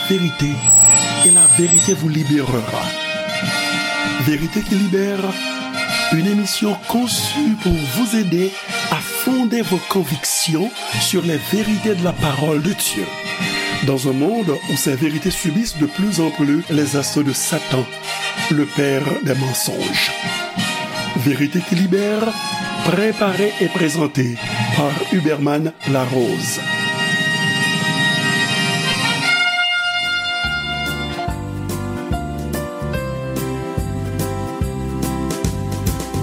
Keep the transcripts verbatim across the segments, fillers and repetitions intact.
vérité, et la vérité vous libérera. Vérité qui libère, une émission conçue pour vous aider à fonder vos convictions sur les vérités de la parole de Dieu. Dans un monde où ces vérités subissent de plus en plus les assauts de Satan, le père des mensonges. Vérité qui libère, préparée et présentée par Huberman Larose.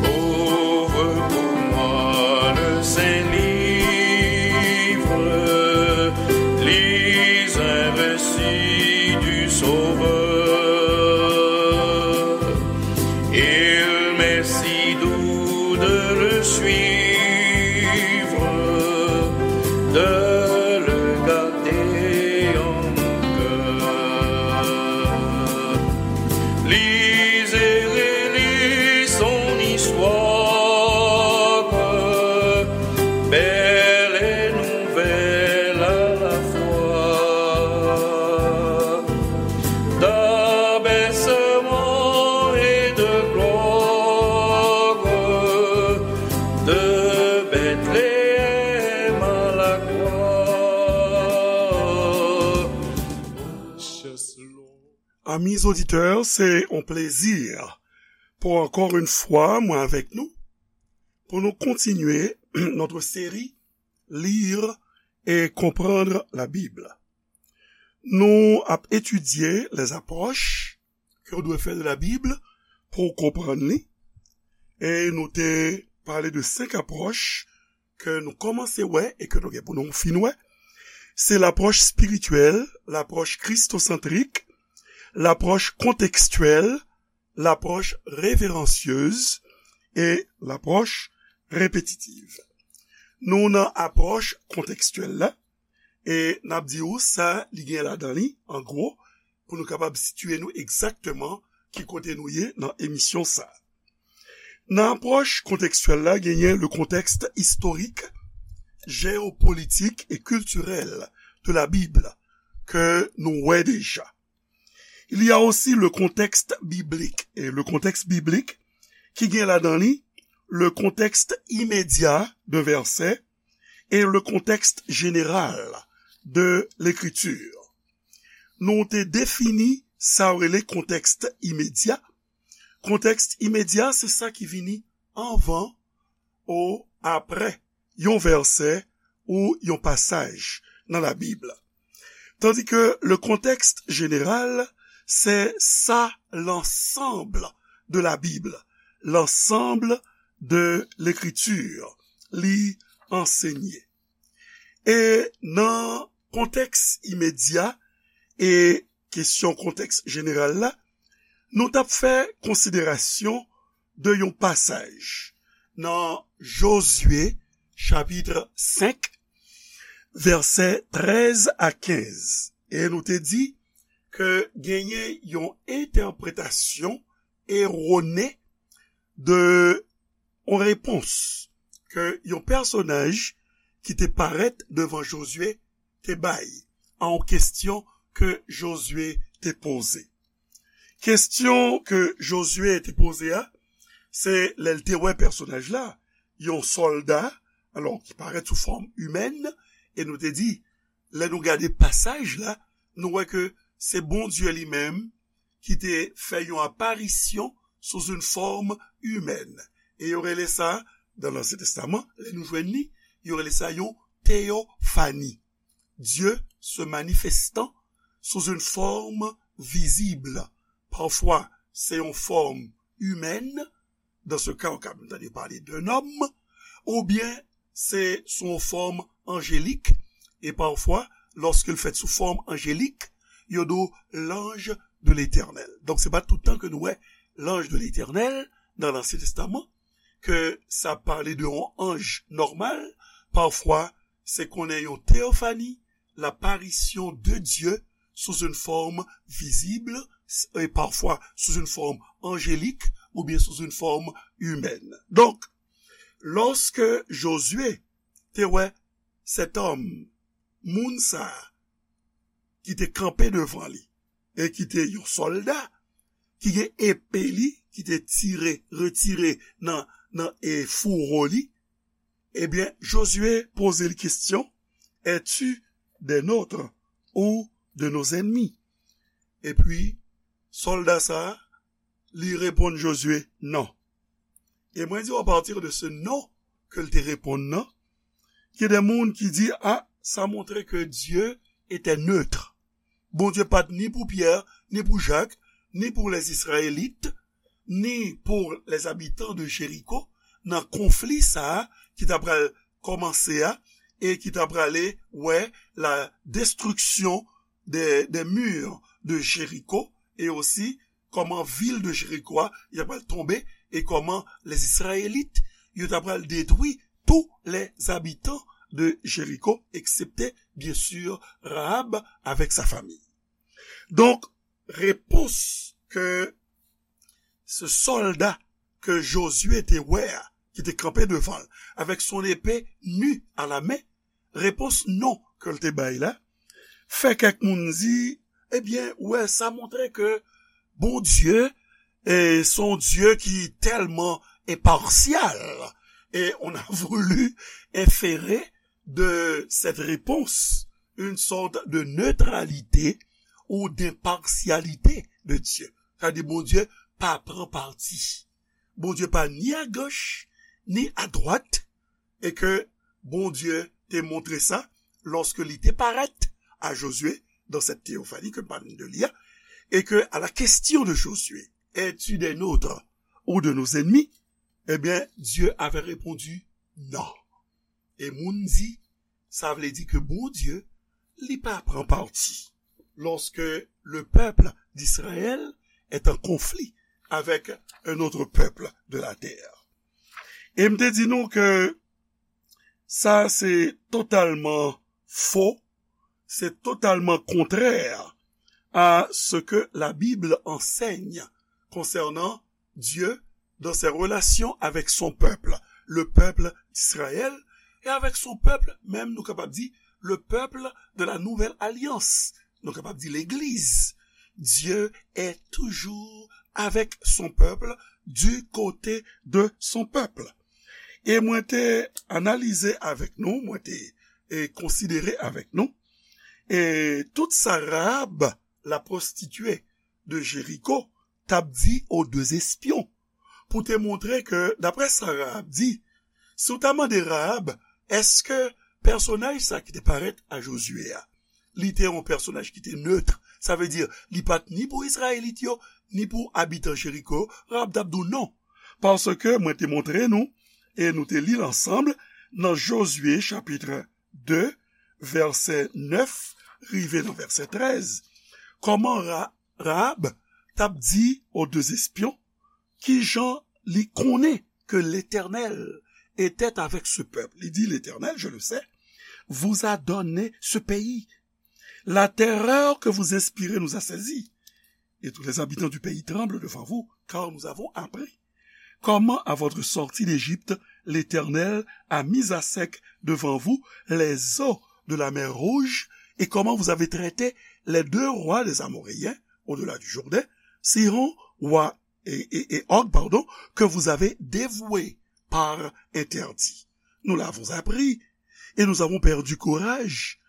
Ouvre pour moi le saint livre, lis un récit du Sauveur. Il m'est si doux de le suivre, de le garder en mon cœur. Lis et relis son histoire, belle et nouvelle à la fois, d'abaissement et de gloire, de Bethléem à la croix. Amis auditeurs, c'est un plaisir pour encore une fois, moi avec nous, pour nous continuer notre série Lire et comprendre la Bible. Nou ap etidye les approches ke w dwe fè de la Bible pou w konprann li. E nou te pale de senk apwòch ke nou kòmanse wè e ke nou gen pou nou fin wè. Se lapwòch espirityèl, lapwòch kristosantrik, lapwòch kontekstyèl, lapwòch reveransyez e lapwòch repetitiv. Nou nan apwòch kontekstyèl la, e n ap di w sa li gen ladan li, an gwo, pou nou kapab sitiye nou egzakteman ki kote nou ye nan emisyon sa. Nan apwòch kontekstyèl la, genyen le contexte historique, géopolitique et culturel de la Bible ke nou wè deja. Il y a aussi le contexte biblique. E le contexte biblique ki gen ladan li le contexte immédiat d'un verset et le contexte général de l'écriture. Nou te defini sa yo rele kontèks imedya. Kontèks imedya, se sa ki vini anvan ou aprè yon vèsè ou yon pasaj nan Labib. Tandis que le contexte général, c'est ça l'ensemble de la Bible, l'ensemble de l'écriture, li ansenye. E nan kontèks imedya e kesyon kontèks jeneral la, nou t ap fè konsiderasyon de yon pasaj nan Jozye, chapit senk, vèsè trèz a kenz. E nou te di ke genyen yon entèpretasyon erone de yon repons ke yon pèsonaj ki te parèt devan Jozye te bay a yon kesyon ke Jozye te poze. Kesyon ke Jozye te poze a, se lè l te wè pèsonaj la, yon sòlda, alò, ki parèt sou fòm imèn, e nou te di, lè nou gade pasaj la, nou wè ke se Bondye li menm ki te fè yon aparisyon sou yon fòm imèn. E yo rele sa, nan Ansyen Testaman, lè nou jwenn li, yo rele sa yon teyofani. Dieu se manifestant sous une forme visible. Pafwa, se yon fòm imèn, dans ce cas, ou ka menm tande pale d'un homme, oubyen se sou yon fòm anjelik, e pafwa, lòske l fèt sou fòm anjelik, yo di w l'ange de l'Éternel. Donk, se pa tout tan ke nou wè l'ange de l'Éternel nan Ansyen Testaman, ke sa pale de yon anj nòmal, pafwa, se konnen yon teyofani, l'apparition de Dieu sous une forme visible, et parfois sous une forme angélique, oubyen sous une forme humaine. Donk, lòske Jozye te wè sèt òm, moun sa a, ki te kanpe devan li, e ki te yon sòlda, ki gen epe li, ki te tire, retire nan, nan, e, fouwo li, ebyen, Jozye poze l kesyon, Es-tu des nôtres ou de nos ennemis? Epi, sòlda sa a, li reponn Jozye, non. E mwen di w, apati de se non ke l te reponn nan, gen de moun ki di, a, sa montre ke Dye etè netre. Bondye pa t ni pou Pyè, ni pou Jak, ni pou lèzizrayelit, ni pou lèzabitan de Jeriko, nan konfli sa a ki t ap pral kòmanse a, e ki t ap prale wè la destriksyon de, de mur de Jeriko, e osi kòman vil de Jeriko a, y ap pral tonbe, e kòman lèzizrayelit, yo t ap pral detwi tous les habitants de Jéricho, eksepte, byen si, Rahab avèk sa fanmi. Donk, repons ke se sòlda ke Jozye te wè a, ki te kanpe devan l, avec son épée nue à la main, repons non ke l te bay la, fè kèk moun di, ebyen, wè, sa montre ke Bondye, e, se yon Dye ki tèlman enpasyal. Et on a voulu inférer de cette réponse une sorte de neutralité ou d'impartialité de Dieu. Sa di Bondye pa pran pati. Bondye pa ni a gòch, ni a dwat, e ke Bondye te montre sa lòske li te parèt a Jozye dans cette théophanie ke m pale de li a, e ke à la question de Josué, es-tu des nôtres ou de nos ennemis? Ebyen, Dieu avait répondu non. E moun di, sa vle di ke Bondye, li pa pran pati lorsque le peuple d'Israël est en conflit avec un autre peuple de la terre. E m te di nou ke sa se totalman fo, se totalman kontrè a ce que la Bible enseigne concernant Dieu dans ses relations avec son peuple, le peuple d'Israël, et avec son peuple, même nou kapab di, le peuple de la nouvelle alliance, nou kapab di legliz. Dieu est toujours avec son peuple, du côté de son peuple. E mwen te analize avèk nou, mwen te, e, konsidere avèk nou, e tout sa Rahab, la prostituée de Jéricho, t ap di aux deux espions, pou te montre ke, daprè sa Rahab di, si w ta mande Rahab, èske pèsonaj sa ki te parèt a Jozye a, li te yon pèsonaj ki te netre, sa vle di, li pa t ni pou Izrayelit yo, ni pou abitan Jeriko, Rahab t ap di w non. Paske mwen te montre nou, e nou te li l ansanm, nan Jozye chapit de, vèsè nèf, rive nan vèsè trèz, kòman Ra-, Rahab t ap di aux deux espions, kijan li konnen ke Letènèl etè avèk se pèp. Li di, L'Éternel, je le sais, vous a donné ce pays. La terreur que vous inspirez nous a saisis. Et tous les habitants du pays tremblent devant vous, car nous avons appris comment, à votre sortie d'Égypte, l'Éternel a mis à sec devant vous les eaux de la mer Rouge, et comment vous avez traité les deux rois des Amoréens, au-delà du Jourdain, Sihon, roi, et, et, et Og, pardon, que vous avez dévoués par interdit. Nous l'avons appris, et nous avons perdu courage,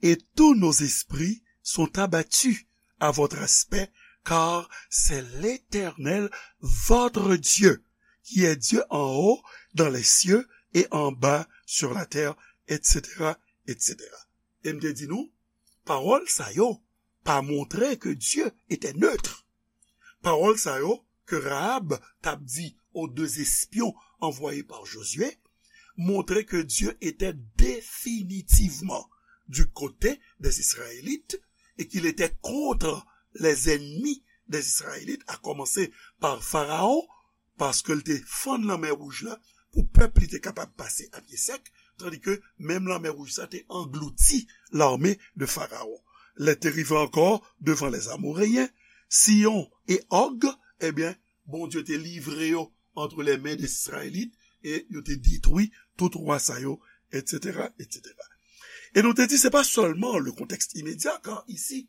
et tous nos esprits sont abattus à votre aspect, car c'est l'Éternel, votre Dieu, qui est Dieu en haut dans les cieux et en bas sur la terre, et cetera, et cetera. E m te di nou, pawòl sa yo pa montre ke Dye etè netre. Pawòl sa yo ke Rahab t ap di aux deux espions envoyés par Josué montre ke Dye etè definitivman du côté des Israélites et qu'il était contre les ennemis des Israélites, à commencer par Pharaon, paske l te fann Lanmè Wouj la pou pèp li te kapab pase a pye sèk, tandi ke menm Lanmè Wouj sa te anglouti l'armée de Pharaon. Lè te rive ankò devan les Amoréens, Sihon e Og, ebyen, Bondye te livre yo entre les mains des Israélites, e yo te detwi tout wa sa yo, et cetera, et cetera. Et nous te dit, c'est pas seulement le contexte immédiat, car ici,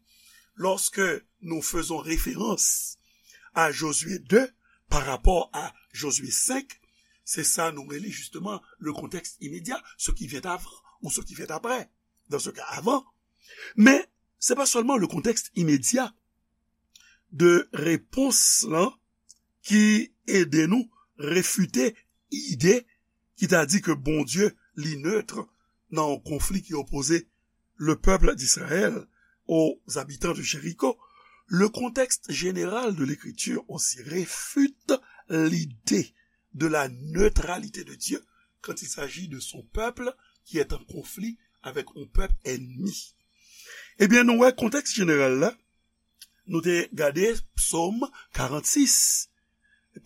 lorsque nous faisons référence à Josué deux par rapport à Josué cinq, c'est ça, nous relie justement le contexte immédiat, ce qui vient avant ou ce qui vient après. Dans ce cas, avant. Mais c'est pas seulement le contexte immédiat de réponse là qui aide nous réfuter ide ki ta di ke Bondye li neutre nan yon konfli ki opoze le peuple d'Israël aux habitants de Jéricho. Le contexte général de l'écriture aussi réfute l'idée de la neutralité de Dieu quand il s'agit de son peuple qui est en conflit avec un peuple ennemi. Ebyen, nou wè kontèks jeneral la, nou te gade Psaume quarante-six.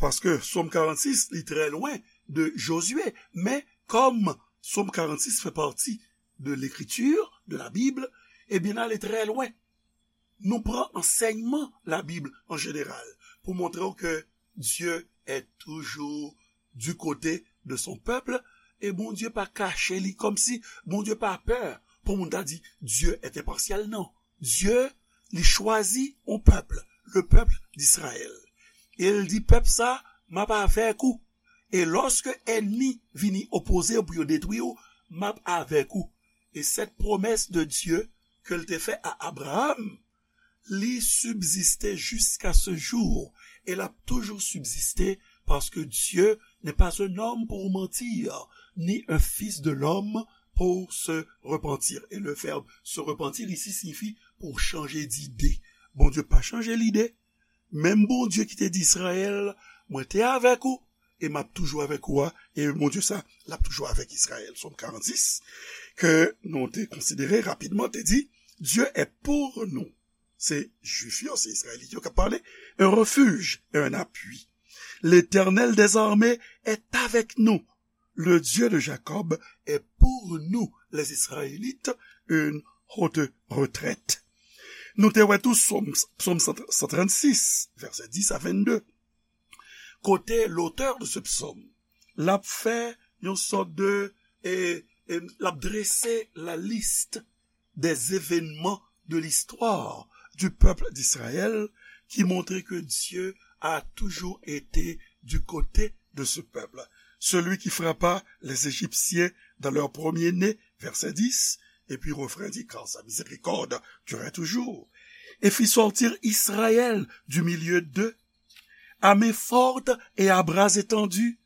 Paske Psaume quarante-six, li trè lwen de Josué. Men, kòm Psaume quarante-six fait partie de l'écriture, de la Bible, ebyen, n ale trè lwen. Nou pran ansèyman la Bible en général pou montre w ke Dieu est toujours du côté de son peuple, e Bondye pa kache li, kòmsi Bondye pa pè pou moun ta di Dieu est impartial. Non. Dieu, li chwazi yon pèp, le peuple d'Israël. E l di pèp sa, m ap avèk ou. E lòske ènmi vini opoze w pou yo detwi w, m ap avèk ou. E cette promesse de Dieu ke l te fè a Abraham, li subsiste jusqu'à ce jour. E l ap toujou subsiste, parce que Dieu n'est pas un homme pour mentir, ni un fils de l'homme pour se repentir. Et le verbe se repentir ici signifie pour changer d'idée. Bondye pa chanje lide. Menm Bondye ki te di Izrayèl, mwen te avèk ou, e m ap toujou avèk ou a, e Bondye sa, l ap toujou avèk Izrayèl. Psaume quarante-six, ke nou te konsidere rapidman, te di, Dieu est pour nous. Se Jwif yo, se Izrayelit yo k ap pale. Un refuge et un appui. L'Éternel des armées est avec nous. Le Dieu de Jacob est pour nous, les Israélites, une haute retraite. Nou te wè tou Psaume, Psaume cent trente-six, verset dix à vingt-deux. Kote l'auteur de ce psaume, l ap fè yon sòt de, e, e, l ap drese la liste des événements de l'histoire du peuple d'Israël qui montrent que Dieu a toujours été du côté de ce peuple. Celui qui frappa les Égyptiens dans leur premier-né, verset dix, et puis refrain dit, car sa miséricorde durait toujours, et fit sortir Israël du milieu d'eux, à main forte et à bras étendus,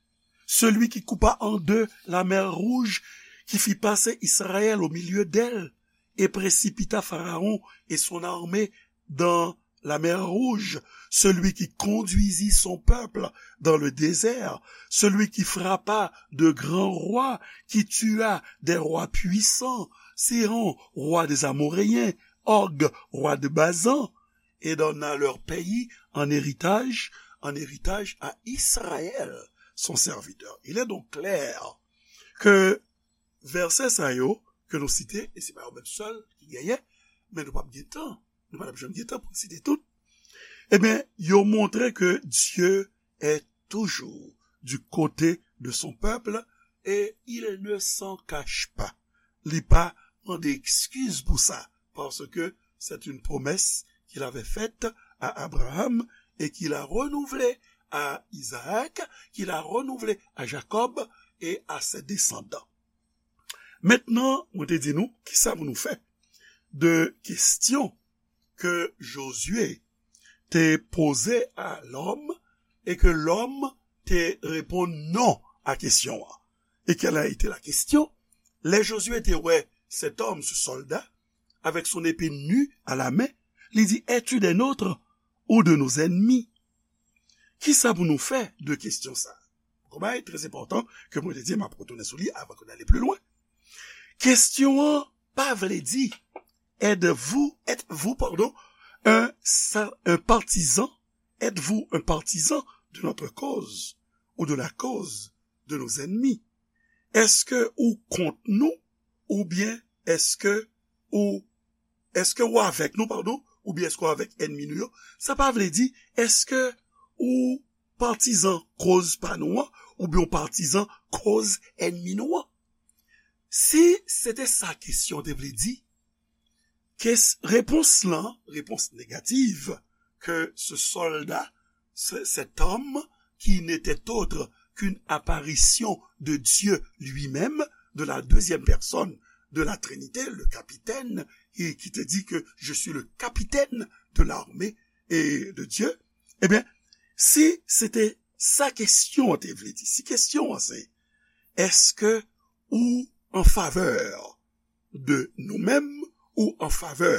celui qui coupa en deux la mer Rouge, qui fit passer Israël au milieu d'elle, et précipita Pharaon et son armée dans la mer Rouge, celui qui conduisit son peuple dans le désert, celui qui frappa de grands rois, qui tua des rois puissants, Sihon, roi des Amoréens, Og, roi de Basan, et donna leur pays en héritage, en héritage à Israël, son serviteur. Il est donc clair que vèsè sa yo ke nou site, e se pa yo menm sèl ki genyen, men nou p ap gen tan, nou pa t ap janm gen tan pou n site tout, ebyen, yo montre ke Dieu est toujours du côté de son peuple et il ne s'en cache pas. Li pa mande ekskiz pou sa, parce que c'est une promesse qu'il avait faite à Abraham et qu'il a renouvelée à Isaac, qu'il a renouvelée à Jacob et à ses descendants. Mentnan, mwen te di nou, kisa pou nou fè de kesyon ke Josué te poze a lòm e ke lòm te reponn non a kesyon an? Et quelle a été la question? Lè Josué te wè cet homme, ce soldat, avec son épée nue à la main, li di, es-tu des nôtres ou de nos ennemis? Kisa pou nou fè de kesyon sa? Yon bagay trè enpòtan ke mwen te di m ap retounen sou li avan ke n ale pli lwen. Kesyon an pa vle di, êtes-vous, êtes-vous, pardon, un, sa- un partisan, êtes-vous un partisan de notre cause ou de la cause de nos ennemis? Èske ou kont nou oubyen èske ou, èske ou avèk nou, padon, oubyen èske ou avèk ènmi nou yo? Sa pa vle di, èske ou patizan koz pa nou an, oubyen ou patizan koz ènmi nou an? Si se te sa kesyon te vle di, kes, repons lan, repons negatif, ke ce soldat, ce, cet homme qui n'était autre qu'une apparition de Dieu lui-même, de la deuxième personne de la Trinité, le capitaine, et qui te dit que je suis le capitaine de l'armée et de Dieu, ebyen, si se te sa kesyon an te vle di, si kesyon an se, èske ou an favè de nou menm ou an favè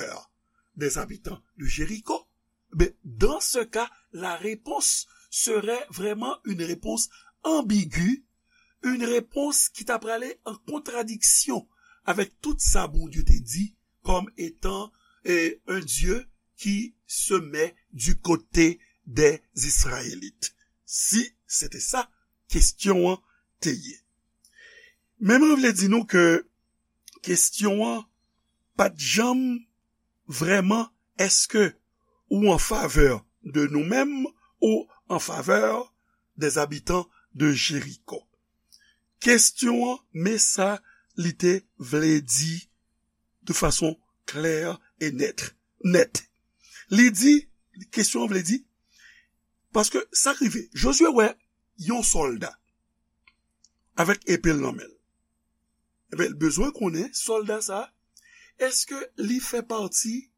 des habitants de Jéricho? Ben, dans ce cas, la réponse serait vraiment une réponse ambiguë, une réponse ki ta prale an kontradiksyon avèk tout sa Bondye te di comme étant eh, un Dieu qui se met du côté des Israélites. Si se te sa kesyon an te ye. Men mwen vle di nou ke kesyon an pa t janm vrèman, èske ou an favè de nou menm ou an favè des habitants de Jéricho? Kesyon an, men sa li te vle di de fason klè e nèt. Nèt. Li di, kesyon an vle di, paske sa k rive, Jozye wè yon sòlda avèk epe l nan men l. Ebyen, l bezwen konnen sòlda sa, èske li fè pati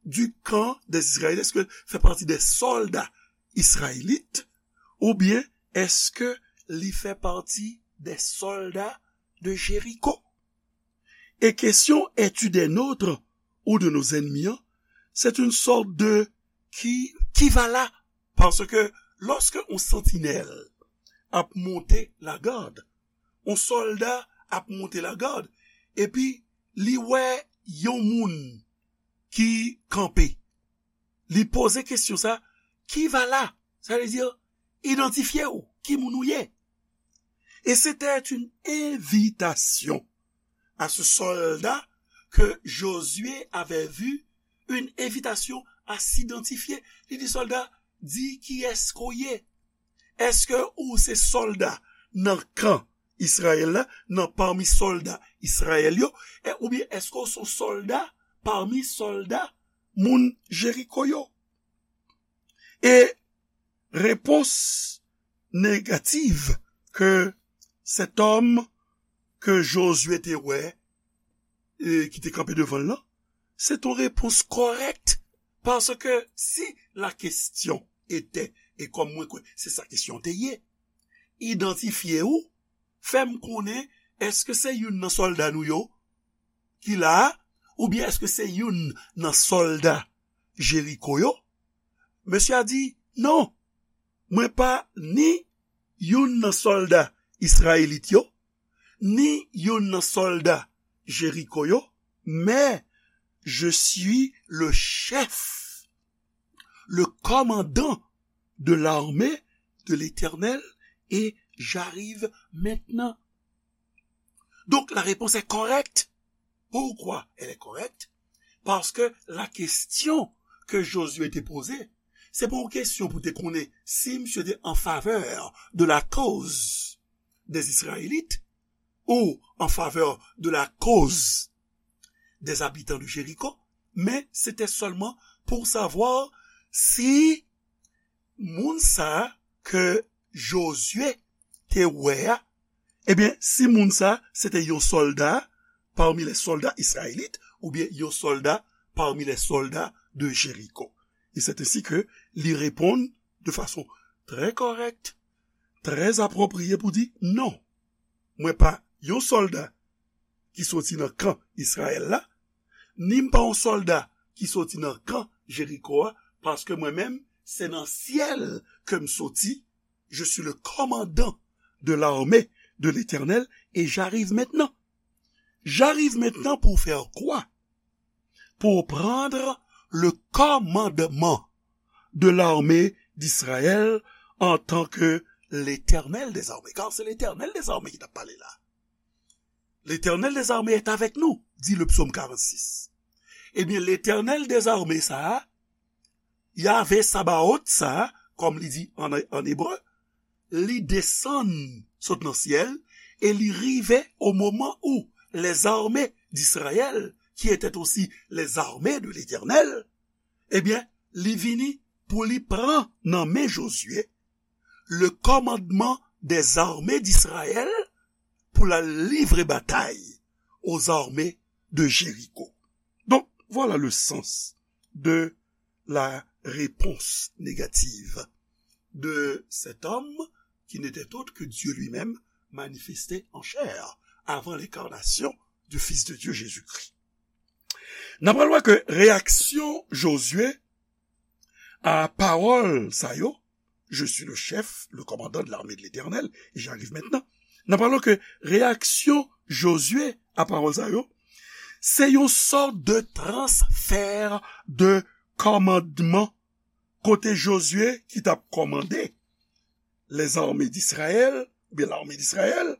du camp des Israélites, èske l fè pati des soldats israélites, oubyen èske li fè pati des soldats de Jéricho? E kesyon es-tu des nôtres ou de nos ennemis an, c'est une sorte de qui, qui va là? Paske lòske yon santinèl ap monte lagad, yon sòlda ap monte lagad, epi li wè yon moun ki kanpe. Li poze kesyon sa, qui va là? Sa vle di, idantifye w, ki moun ou ye? Et c'était une invitation à ce soldat que Josué avait vu, une invitation à s'identifier. Li di sòlda, di kiyès ke w ye. Èske ou se sòlda nan kan Izrayèl la, nan pami sòlda Izrayèl yo, e, oubyen èske ou se yon sòlda pami sòlda moun Jeriko yo? E repons negatif ke cet homme ke Jozye te wè, e, ki te kanpe devan l lan, se t on repons kòrèk, paske si la kesyon ete, e kòm mwen kwè se sa kesyon te ye, idantifye ou, fè m konnen èske se youn nan sòlda nou yo ki la a, oubyen èske se youn nan sòlda Jeriko yo? Mesye a di, non, mwen pa ni youn nan sòlda Izrayelit yo, ni youn nan sòlda Jeriko yo, mais je suis le chef, le commandant de l'armée de l'Éternel, et j'arrive maintenant. Donc, la réponse est correcte. Pourquoi elle est correcte? Paske la kesyon ke Jozye te poze, se pa yon kesyon pou te konnen si misye te an favè de la cause des Israélites ou an favè de la cause des habitants de Jéricho, men se te sèlman pou savwa si moun sa a ke Jozye te wè a, ebyen, si moun sa a se te yon sòlda parmi les soldats israélites oubyen yon sòlda parmi les soldats de Jéricho. E se ensi ke li reponn de fason trè kòrèk, trè apwopriye pou di, non, mwen pa yon sòlda ki soti nan kan Izrayèl la, ni m pa yon sòlda ki soti nan kan Jeriko a, paske mwen menm, se nan syèl ke m soti, je suis le commandant de l'armée de l'Éternel, et j'arrive maintenant. J'arrive maintenant pour faire quoi? Pour prendre le commandement de l'armée d'Israël en tant que l'Éternel des armées. Car c'est l'Éternel des armées ki t ap pale la. L'Éternel des armées est avec nous, dit le psaume quarante-six. Ebyen, Letènèl dezame sa a, Yahvé Sabaot sa a, kòm li di an, an ebre, li desann sot nan syèl, e li rive o moman où les armées d'Israël, qui étaient aussi les armées de l'Éternel, ebyen, li vini pou li pran nan men Jozye le commandement des armées d'Israël pou l al livre batay aux armées de Jéricho. Donc, voilà le sens de la réponse négative de cet homme qui n'était autre que Dieu lui-même manifesté en chair avant l'incarnation du Fils de Dieu Jésus-Christ. N ap wè ke reyaksyon Jozye a pawòl sa yo, je suis le chef, le commandant de l'armée de l'Éternel, et j'arrive maintenant. N ap wè ke reyaksyon Jozye a pawòl sa yo, se yon sòt de transfè de kòmandman kote Jozye ki t ap kòmande les armées d'Israël, oubyen l'armée d'Israël,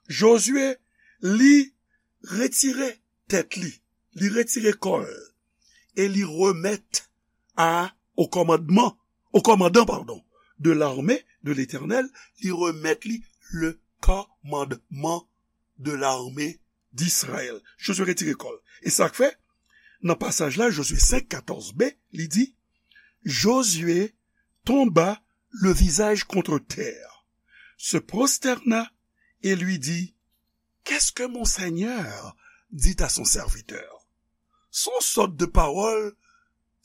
Jozye, li retire tèt li, li retire kò l, e li remèt a, au commandement, au commandant, pardon, de l'armée de l'Éternel, li remèt li le commandement de l'armée d'Israël. Jozye retire kò l. E sa k fè, nan pasaj la, Jozye senk, katòz b, li di, Josué tomba le visage contre terre, se prosterna et lui dit, Qu'est-ce que mon Seigneur dit à son serviteur? Se yon sòt de pawòl,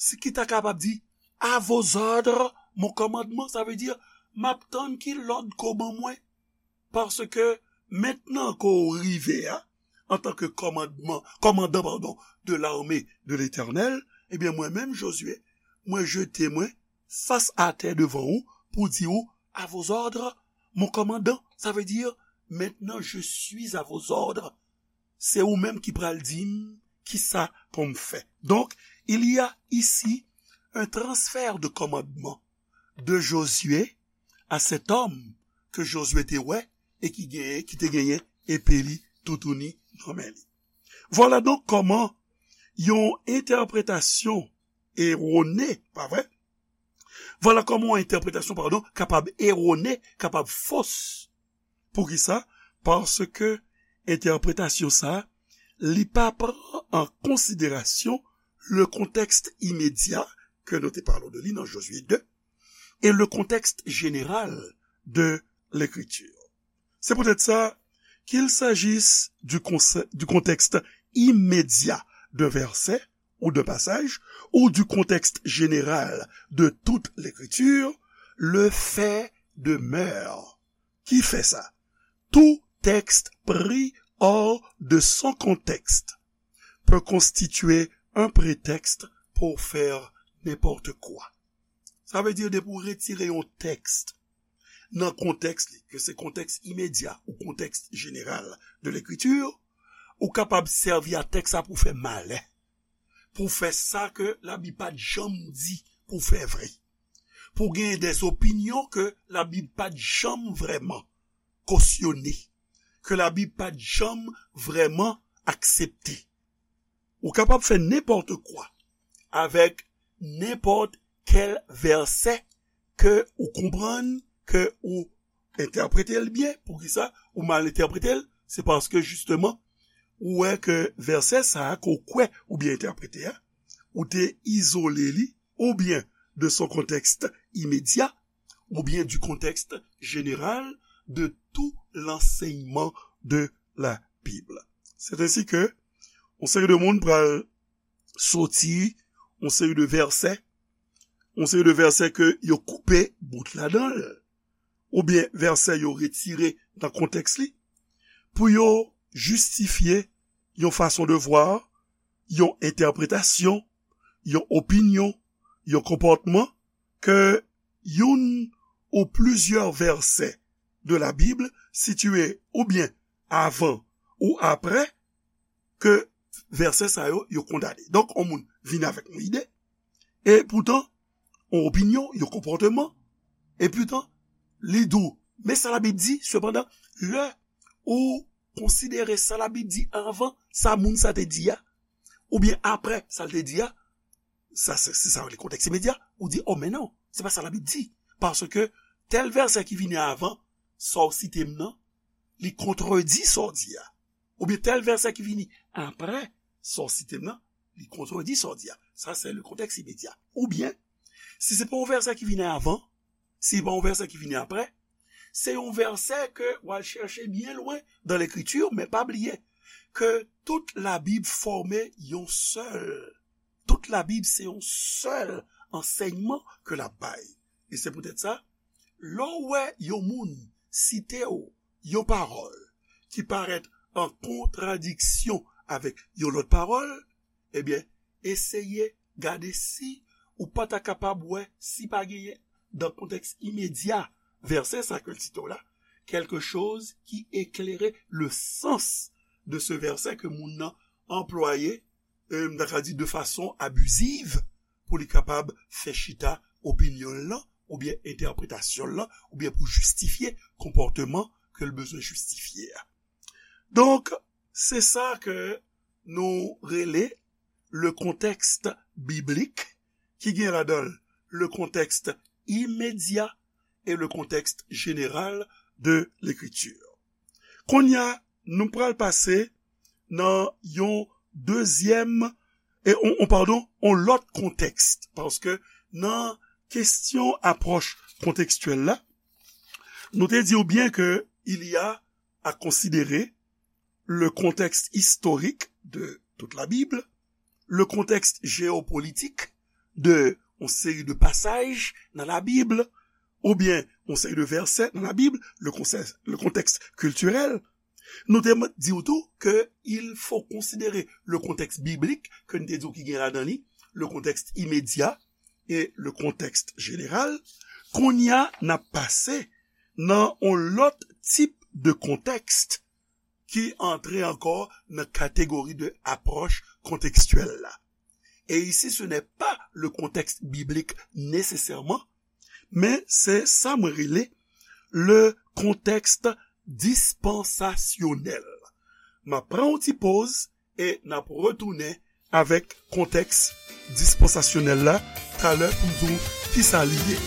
si ki ta kapab di, À vos ordres, mon commandement, sa vle di, m ap tann ki lòd ke w ban mwen. Paske mentnan ke w rive a, antanke kòmandman, kòmandan, padon, de l'armée de l'Éternel, ebyen, mwen menm, Josué, mwen jete mwen fas atè devan ou pou di ou, À vos ordres, mon commandant. Sa vle di, Maintenant, je suis à vos ordres. Se ou menm ki pral di m kisa pou m fè. Donc, il y a ici un transfert de commandement de Josué à cet homme ke Josué te wè e ki genyen, ki te genyen epe li toutouni nan men li. Vwala donk kòman yon entèpretasyon erone, pa vre? Vwala kòman yon entèpretasyon, padon, kapab erone, kapab fos. Poukisa? Paske entèpretasyon sa a, li pa pran an konsiderasyon le contexte immédiat ke nou te pale de li nan Josué deux et le contexte général de l'écriture. C'est peut-être ça, qu'il s'agisse du, conse- du contexte immédiat d'un verset ou d'un passage, ou du contexte général de toute l'écriture, le fait demeure. Ki fè sa? Tout texte pris hors de son contexte peut constituer un prétexte pour faire n'importe quoi. Sa vle di, depi w retire yon tèks nan kontèks li, ke se kontèks imedya ou kontèks jeneral de lekritir, ou kapab sèvi a tèks sa pou fè malè, pou fè sa ke Labib pa t janm di pou fè vre, pou genyen dè opinyon ke Labib pa t janm vrèman kosyone, ke Labib pa t janm vrèman aksepte. Ou kapab fè nenpòt kwa avèk nenpòt kèl vèsè ke ou konprann, ke ou entèprete l byen. Poukisa ou mal entèprete l? Se paske, jisteman, ou wè ke vèsè sa a ke w kwè oubyen entèprete a, ou te izole li, oubyen de son contexte immédiat, oubyen du contexte général de tout l'enseignement de la Bible. C'est ainsi que yon seri de moun pral soti yon seri de vèsè, yon seri de vèsè ke yo koupe bout ladan l, oubyen vèsè yo retire nan kontèks li, pou yo jistifye yon fason de vwa, yon entèpretasyon, yon opinyon, yon konpòtman ke youn ou plizyè vèsè de la Bib sitiye oubyen avan ou aprè ke vèsè sa yo, yo kondane. Donk, yon moun vin avèk yon ide, e poutan, yon opinyon, yon konpòtman, e poutan, li di w, men sa Labib di, sepandan, lè ou konsidere sa Labib di avan sa moun sa te di a, oubyen aprè sa l te di a, sa se, se sa yo rele kontèks imedya, ou di, o, men non, se pa sa Labib di, paske tèl vèsè ki vini avan sa w site m nan, li kontredi sa w di a. oubyen tèl vèsè ki vini apre sa w site m nan, li kontredi sa w di a. Sa, se le kontèks imedya. Oubyen, si se pa yon vèsè ki vini avan, si se pa yon vèsè ki vini apre, se yon vèsè ke w al chèche byen lwen dan Lekriti, men pa bliye ke tout Labib fòme yon sèl. Tout Labib se yon sèl ansèyman ke l ap bay. E se poutèt sa, lè w wè yon moun site w yon pawòl ki parèt an kontradiksyon avèk yon lòt pawòl, ebyen, eseye gade si ou pa ta kapab wè si pa genyen, dan kontèks imedya vèsè sa ke l site w la, quelque chose qui éclairait le sens de ce verset ke moun nan anplwaye, euh, m ta ka di de fason abiziv, pou li kapab fè chita opinyon l lan, oubyen entèpretasyon l lan, oubyen pou jistifye konpòteman ke l bezwen jistifye a. Donk, se sa ke nou rele le contexte biblique, ki gen ladan l le contexte immédiat et le contexte général de l'écriture. Kounye a, nou pral pase nan yon dezyèm, e, on, on, padon, on lòt kontèks, paske nan kesyon apwòch kontekstyèl la, nou te di w byen ke il y a à considérer le contexte historique de toute la Bible, le contexte géopolitique de yon seri de pasaj nan Labib, oubyen yon seri de vèsè nan Labib, le contexte, le contexte culturel. Nou te di w tou ke il faut considérer le contexte biblique, ke n te di w ki gen ladan li, le contexte immédiat et le contexte général. Kounye a, n ap pase nan yon lòt tip de kontèks ki antre ankò nan kategori de apwòch kontekstyèl la. Et ici, ce n'est pas le contexte biblique nécessairement, men se sa mwen rele le contexte dispensasyonèl. M ap pran yon ti poz e n ap retounen avèk kontèks dispansasyonèl la talè pou m di w kisa li ye.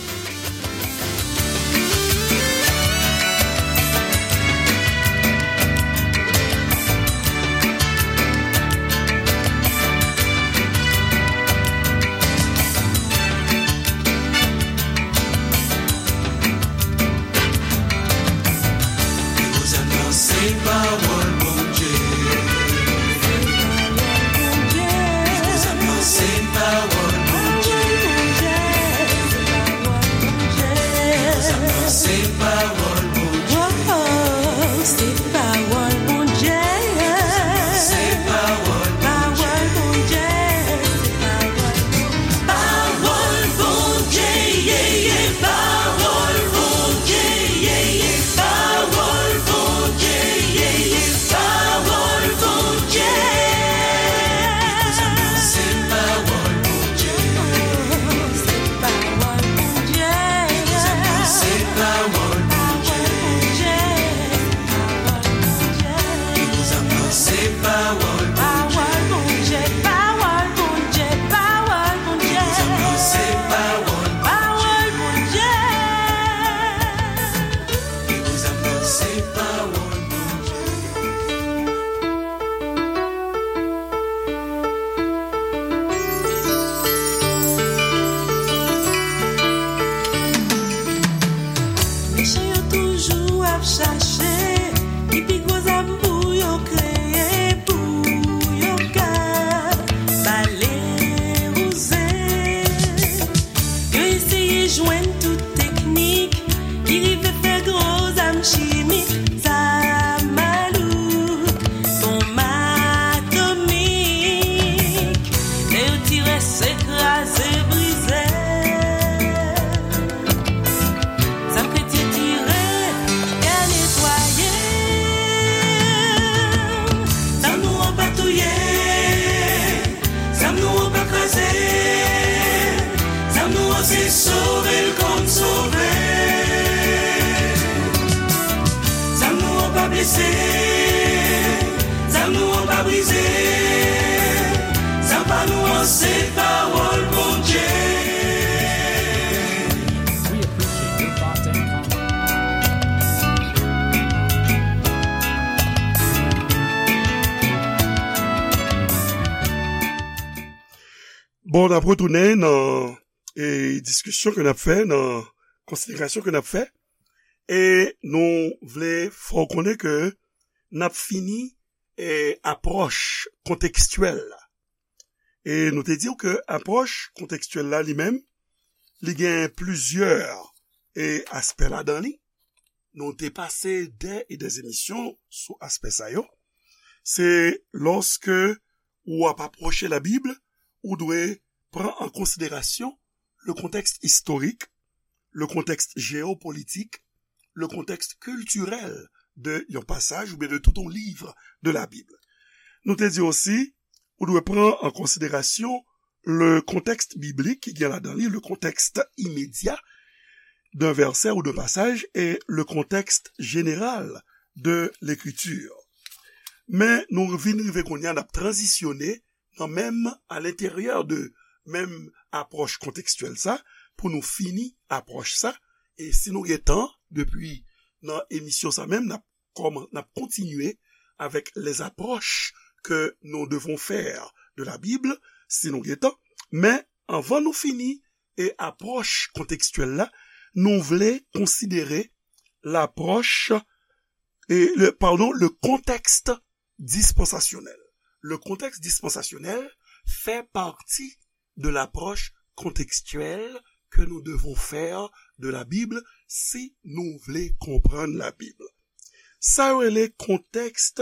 Li koze m nan se pawòl Bondye. Li koze m nan se pawòl Bondye. Li koze m nan se pawòl Bondye. Se pawòl Bondye. Se pawòl Bondye. Pawòl Bondye. Pawòl Bondye, ye, ye, pawòl Bondye, ye, ye, pawòl Bondye, ye, ye, pawòl Bondye. Se pawòl Bondye. Se pawòl Bondye. Se pawòl Bondye. Se pawòl Bondye. Pawòl Bondye, pawòl Bondye, pawòl Bondye. Se pawòl Bondye. Se pawòl Bondye. Mechan yo toujou ap chache ki pi gwo zam pou yo kreye, pou yo ka bale wouze. Yo eseye jwenn tout teknik ki rive fè gwo zam chimik, zam malouk, bonm atomik. Lè yo tire, se kraze, brize. Zam kretyen tire, tè netwaye. Zam nou an pa touye. Zam nou an pa kraze. Zam nou an se sove l kòm sove. Zam nou an pa blese. Zam nou an pa brize. Zam pa nou an se pawòl Bondye. We appreciate your thoughts and comments. Bon, n ap retounen nan e, diskisyon ke n ap fè, nan konsiderasyon ke n ap fè. E nou vle fè w konnen ke n ap fini e, apwòch kontekstyèl la. E nou te di w ke apwòch kontekstyèl la li menm, li gen plizyè e, aspè ladan li. Nou te pase dè e dè emisyon sou aspè sa yo. Se lòske ou ap apwoche Labib, ou dwe pran an konsiderasyon le contexte historique, le contexte géopolitique, le contexte culturel de yon pasaj oubyen de tout yon liv de Labib. Nou te di osi, ou dwe pran an konsiderasyon le contexte biblique ki gen ladan li, le contexte immédiat d'un verset ou d'un passage et le contexte général de l'écriture. Men nou vin rive kounye a, n ap tranzisyone nan menm, à l'intérieur de menm apwòch kontekstyèl sa, pou nou fini apwòch sa. E si nou gen tan, depi nan emisyon sa menm, n ap kòman-, n ap kontinye avec les approches que nous devons faire de la Bible, si nou gen tan. Men anvan nou fini e apwòch kontekstyèl la, nou vle konsidere lapwòch, e le, pardon, le contexte dispensasyonèl. Le contexte dispensasyonèl fait partie de l'approche contextuelle que nous devons faire de la Bible si nou vle konprann Labib. Sa yo rele kontèks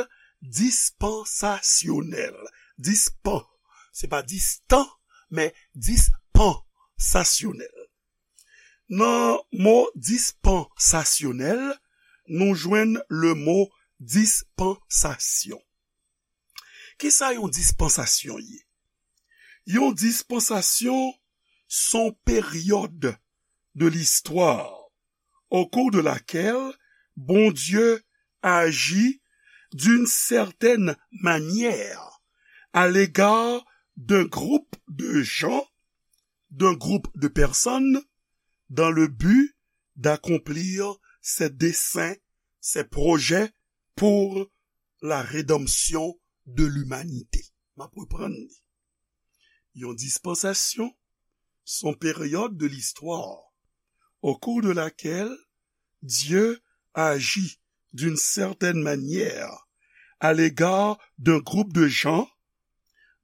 dispansasyonèl. Dispan, se pa distan, men dispansasyonèl. Nan mo dispansasyonèl, nou jwenn le mo dispansasyon. Kisa yon dispansasyon ye? Yon dispansasyon se yon peryòd de l'histoire au cours de laquelle Bondye agit d'une certaine manière à l'égard d'un groupe de gens, d'un groupe de personnes, dans le but d'accomplir ses desseins, ses projets pour la rédemption de l'humanité. M ap reprann li. Yon dispansasyon se yon peryòd de l'histoire au cours de laquelle Dieu agit d'une certaine manière à l'égard d'un groupe de gens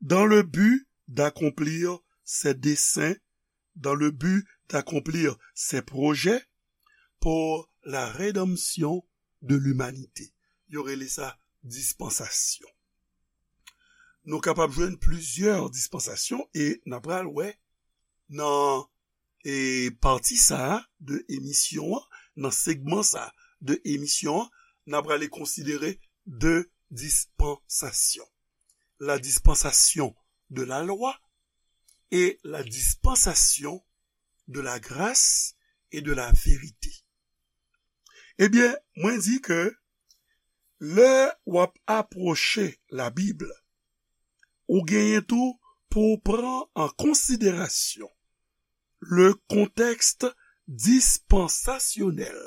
dans le but d'accomplir ses desseins, dans le but d'accomplir ses projets pour la rédemption de l'humanité. Yo rele sa dispansasyon. Nou kapab jwenn plizyè dispansasyon e n a pral wè nan e pati sa a de emisyon an, nan segman sa a de emisyon an, n a prale konsidere de dispansasyon. La dispensation de la loi et la dispensation de la grâce et de la vérité. Ebyen, mwen di ke lè w ap apwoche Labib, ou genyen tou pou w pran an konsiderasyon le contexte dispensasyonèl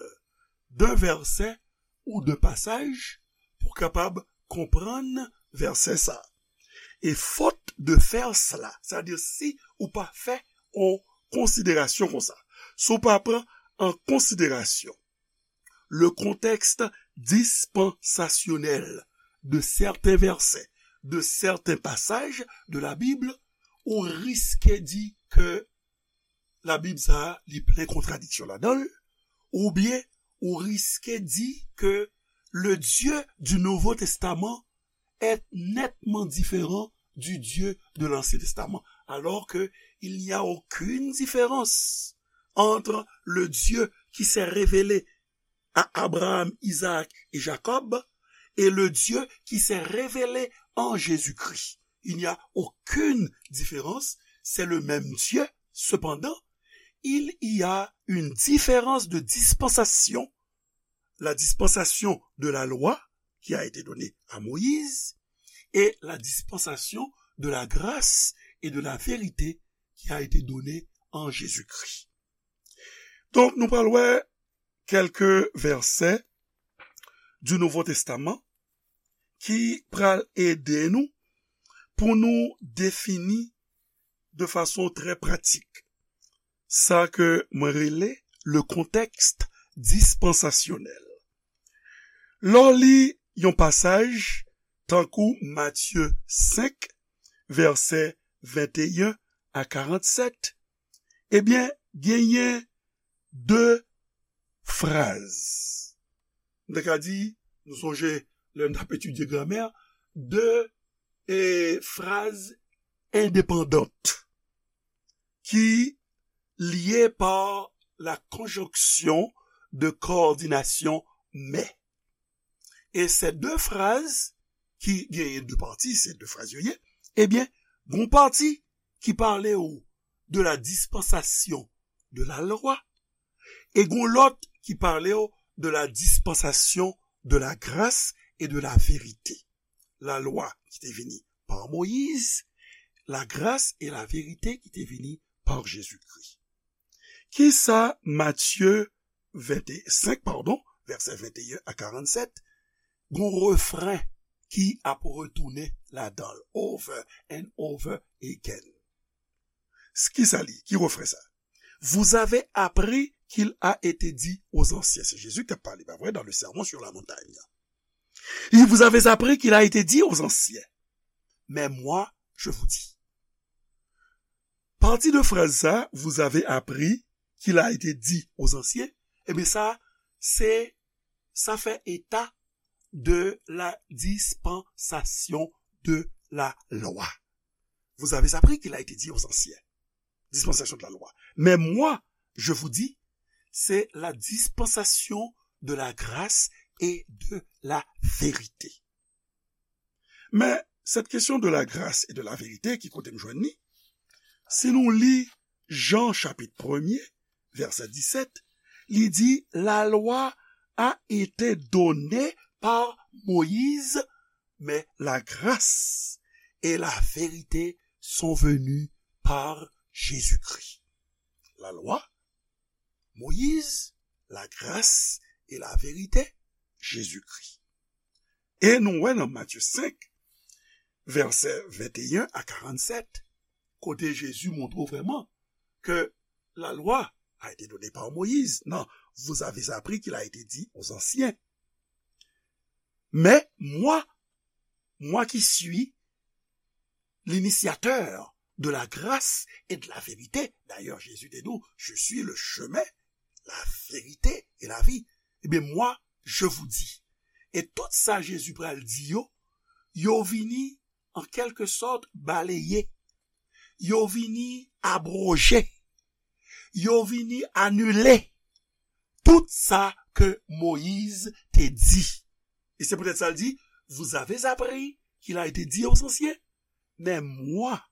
d'un verset ou d'un passage pou kapab konprann vèsè sa. Et faute de faire cela, c'est-à-dire si ou pa fè yon konsiderasyon konsa, si ou pa pran an konsiderasyon le contexte dispensasyonèl de certains versets, de certains passages de la Bible, ou riske di ke Labib sa a, li plen kontradiksyon ladan l, oubyen ou riske di ke le Dieu du Nouveau Testament est nettement différent du Dieu de l'Ancien Testament, alors que il n'y a aucune différence entre le Dieu qui s'est révélé à Abraham, Isaac et Jacob et le Dieu qui s'est révélé en Jésus-Christ. Il n'y a aucune différence, c'est le même Dieu. Cependant, il y a une différence de dispensation, la dispensation de la loi qui a été donnée à Moïse et la dispensation de la grâce et de la vérité qui a été donnée en Jésus-Christ. Donk, nou pral wè kèlke vèsè du Nouveau Testament ki pral ede nou pou nou defini de fason trè pratik sa ke mwen rele le contexte dispensasyonèl. Lè w li yon pasaj tankou Matye senk, vèsè venteyen a karannsèt, ebyen, genyen de fraz. M ta ka di, nou sonje lè n t ap etidye gramè, de, e, fraz endepandant ki lye pa la konjonksyon de kowòdinasyon mè. E se de fraz ki genyen de pati, se de fraz yo ye, ebyen, gon pati ki pale w de la dispensation de la loi, e gon lòt ki pale w de la dispensation de la grâce et de la vérité. La lwa ki te vini pa Moyiz, la gras e la verite ki te vini pa Jezikri. Kisa Matye ventesenk, padon, vèsè venteyen a karannsèt, gon refren ki ap retounen ladan l, over and over again. S-, kisa li? Ki refren sa? Vous avez appris qu'il a été dit aux anciens. Se Jezi ki t ap pale, pa vre, dans le Sermon sur la montagne. Il vous avez appris qu'il a été dit aux anciens. Mais moi, je vous dis. Pati de fraz sa, vous avez appris qu'il a été dit aux anciens, ebyen sa, se, sa fè eta de la dispensation de la loi. Vous avez appris qu'il a été dit aux anciens. Dispensation de la loi. Mais moi, je vous dis, c'est la dispensation de la grâce et de la vérité. Men, cette question de la grâce et de la vérité, ki kote m jwenn li? Si nou li Jan chapit premye, vèsè disèt, li di, la loi a été donnée par Moïse, mais la grâce et la vérité sont venues par Jésus-Christ. La loi, Moïse, la grâce et la vérité, Jésus-Christ. E nou wè nan Matye senk, vèsè venteyen a karannsèt, kote Jezi montre w vrèman ke la loi a été donnée par Moïse. Non, vous avez appris qu'il a été dit aux anciens. Mais moi, moi qui suis l'initiateur de la grâce et de la vérité. D'ailleurs, Jésus te dit, je suis le chemin, la vérité et la vie. Eh bien, moi, je vous dis. E tout sa Jezi pral di yo, yo vini, an kèlke sòt, baleye. Yo vini abwoje. Yo vini anile tout sa ke Moyiz te di. E se poutèt sa l di, vous avez appris qu'il a été dit aux anciens, mais moi,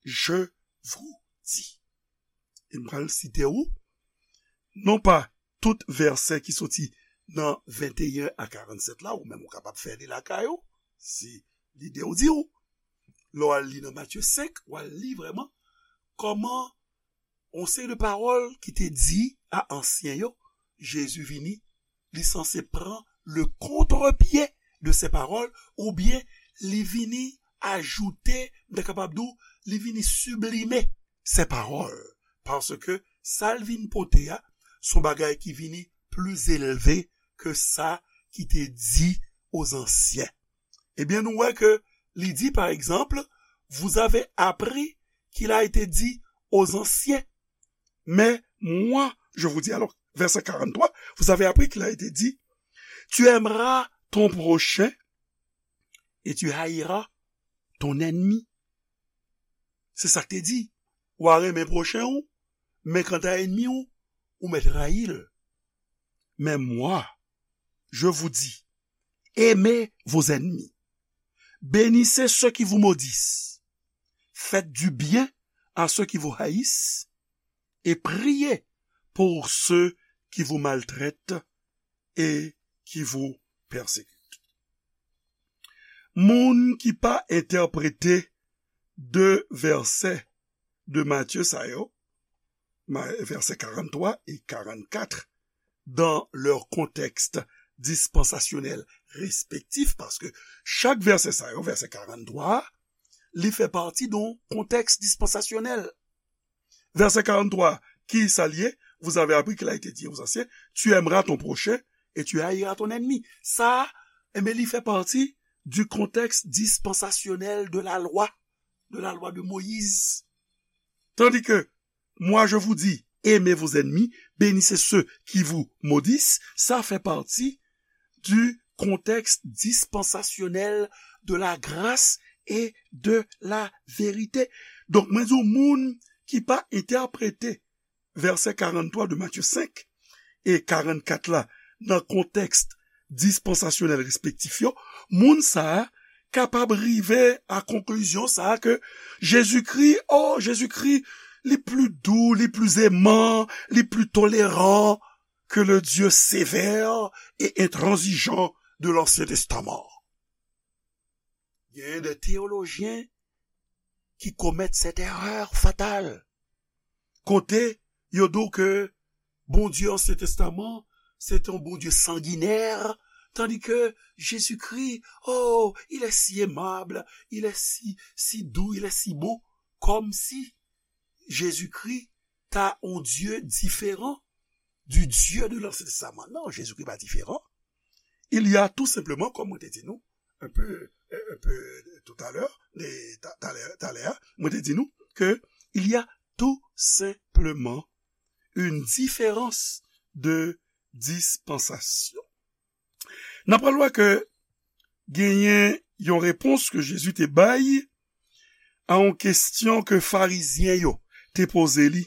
je vous dis. E m pral site ou, non pa tout vèsè ki soti nan venteyen a karannsèt la, ou menm ou kapab fè li lakay ou, si lide w di w. Lè w al li nan Matye senk, w al li vrèman kòman yon seri de pawòl ki te di a ansyen yo, Jezi vini, li sanse pran le kontrepye de se pawòl, oubyen li vini ajoute, m ta kapab di w, li vini siblime se pawòl. Paske sa l vin pote a, se yon bagay ki vini pli elve ke sa ki te di aux anciens. Ebyen, nou wè ke li di, par exemple, vous avez appris qu'il a été dit aux anciens. Mais moi, je vous dis, alors, verset quarante-trois, vous avez appris qu'il a été dit, tu aimeras ton prochain et tu haïras ton ennemi. Se sa k te di. Ou a renmen pwochen ou, men kanta ènmi ou, ou mèt rayi l. Mais moi, je vous dis, aimez vos ennemis. Bénissez ceux qui vous maudissent. Faites du bien à ceux qui vous haïssent et priez pour ceux qui vous maltraitent et qui vous persécutent. Moun ki pa entèprete de vèsè de Matye sa yo, ma-, vèsè karannntwa e karannkat, dans leur contexte dispensasyonèl respektif, paske chak vèsè sa yo, vèsè karannntwa a, li fè pati de yon kontèks dispansasyonèl. Vèsè karanntrwa, ki sa l ye? Vous avez appris qu'il a été dit aux anciens, tu aimeras ton prochain et tu haïras ton ennemi. Sa, enben, li fè pati du contexte dispensasyonèl de la loi, de la loi de Moïse. Tandis que, moi je vous dis, aimez vos ennemis, bénissez ceux qui vous maudissent, sa fè pati du contexte dispensasyonèl de la grâce et de la vérité. Donk, mwen di w, moun ki pa entèprete vèsè karanntrwa de Matye senk e karannkat la nan kontèks dispansasyonèl respektif yo, moun sa a kapab rive a konklizyon sa a ke Jezikri, oh, Jezikri, li pli dou, li pli eman, li pli toleran ke le Dieu sévère et intransigeant de l'Ancien Testament. Genyen de teyolojyen ki komèt cette erreur fatale. Kote yo di w ke Bondye Ansyen Testaman, se te yon Bondye sanginè, tandis que Jésus-Christ, oh, il est si aimable, il est si, si doux, il est si bon, comme si Jésus-Christ ta yon Dye diferan du Dieu de l'Ancien Testament. Non, Jezikri pa diferan. Il y a tout simplement, comme mwen te di nou, un peu, un peu tout à l'heure, de, ta- talè, talè a, mwen te di nou ke il y a tout simplement une différence de dispensation. N ap pral wè ke genyen yon repons ke Jezi te bay a yon kesyon ke Farizyen yo te poze li